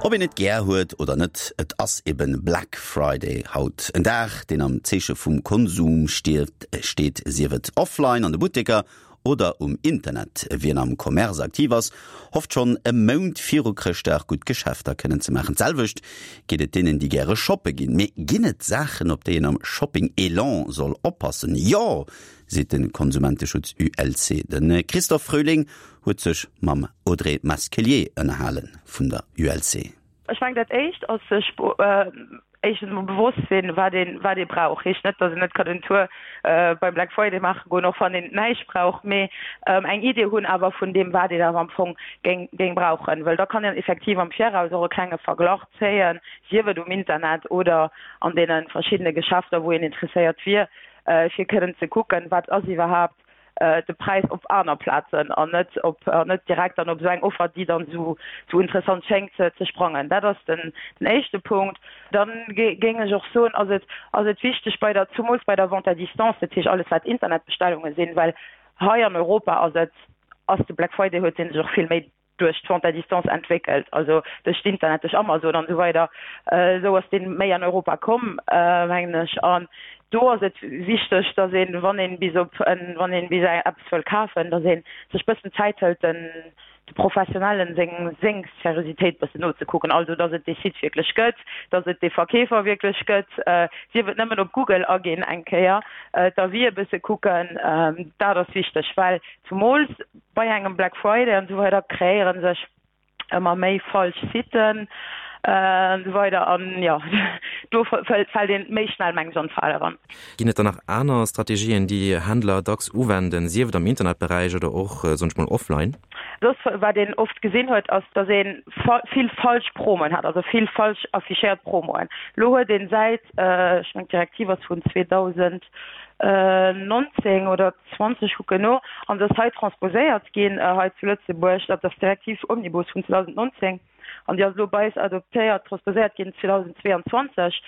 Ob een et gär huet oder net, et ass eben Black Friday haut. En Dag, deen am Zeeche vum Konsum steet, sief et offline an de Butteker oder um Internet. Wien am Commerce aktiv ass, hofft schonn e Mount viru Chrëschtdag gutt Geschäfter kënnen ze maachen. D'selwecht geet et deenen, déi gäre shoppe ginn. Mee ginn et Saachen, op déi een am Shopping-Elan soll oppassen? Jo, seet de Konsumenteschutz ULC. De Christophe Fröhling huet sech mam Audrey Masquelier ënnerhale vun der ULC. Ech mengen dat éischt ass sech éischtens emol bewosst sinn, wat een wat ee brauch. Heescht net, datt een net kann en Tour beim Black Friday maache goen, och wann een näischt brauch, mee eng Idee hunn awer vun deem wat een awer am Fong géing géing brauchen, well da kann een effektiv am Viraus och e klenge Verglach zéien, sief et um Internet oder an deene verschiddene Geschäfter wou een interesséiert wier, fir kënnen ze kucken, wat ass iwwerhaapt de Präis op aner Plazen an net op an net direkt dann op esou eng Offer, déi dann esou esou interessant schéngt, ze ze sprangen. Dat ass den den éischte Punkt. Dann géing ech och soen, ass et ass et wichteg bei der zumools bei der Vente à distance, dat heescht alles wat Internetbestellunge sinn, well hei an Europa ass et ass de Black Friday huet dee sech och vill méi duerch d'Vente à distance entwéckelt, also duerch d'Internet, duerch Amazon an esou weider. Esou ass dee méi an Europa komm, mengen ech. An do ass et wichteg, datt een, wann een bis op en, wann een bis eppes wëll kafen, datt ee sech bëssen Zäit hëlt, den de Professionellen seng seng Seriositéit bëssen nozekucken, also datt et dee Site wierklech gëtt, datt et dee Verkeefer wierklech gëtt, sief et nëmmen op Google aginn eng Kéier, d'Avisë bësse kucken, dat ass wichteg, well zumools Bei engem Black Friday an esou weider kreéiere sech ëmmer méi falsch Siten an esou weider an jo do fält een méi schnell mengen ech an d'Fal eran. Ginn et dann nach aner Strategien déi Händler dacks uwenden, sief et am Internetberäich oder och soen ech mol offline? Soss wat een oft gesinn huet ass dass ee vill falsch Promoen hat, also vill falsch affichéiert Promoen. Lo huet een säit, ech mengen d'Direktiv ass vun 2019 oder 20 kucken no, an se ass hei transposéiert ginn hei zu Lëtzebuerg, dat ass d'Direktiv Omnibus vun 2019, an déi ass elo bei eis adoptéiert, transposéiert ginn 2022,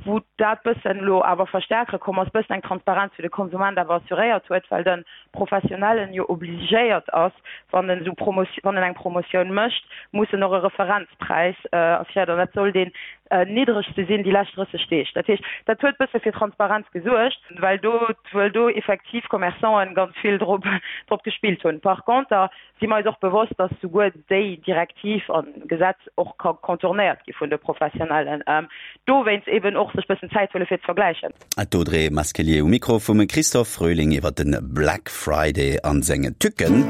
wou dat bëssen elo awer verstärkere komm ass, bëssen eng Transparenz fir de Konsument awer assuréiert huet, well de Professionellen jo obligéiert ass, wann en esou Promo, wann en eng Promotioun mécht, muss en och e Referenzpräis assuréiert, an dat soll deen niddregste sinn déi lescht 30 Deeg. Dat heescht, dat huet bësse fir Transparenz gesuergt, well do, well do effektiv Commerçanten ganz vill drop, drop gespillt hunn. Par conter si mer eis och bewosst, dass souguer déi Direktiv an Gesetz och ka contournéiert gi vun de Professionellen. Dowéinst eben och sech bëssen Zäit huele fir ze vergläichen. D'Audrey Masquelier um Mikro vum Christophe Fröhling iwwer de Black Friday an seng Tücken.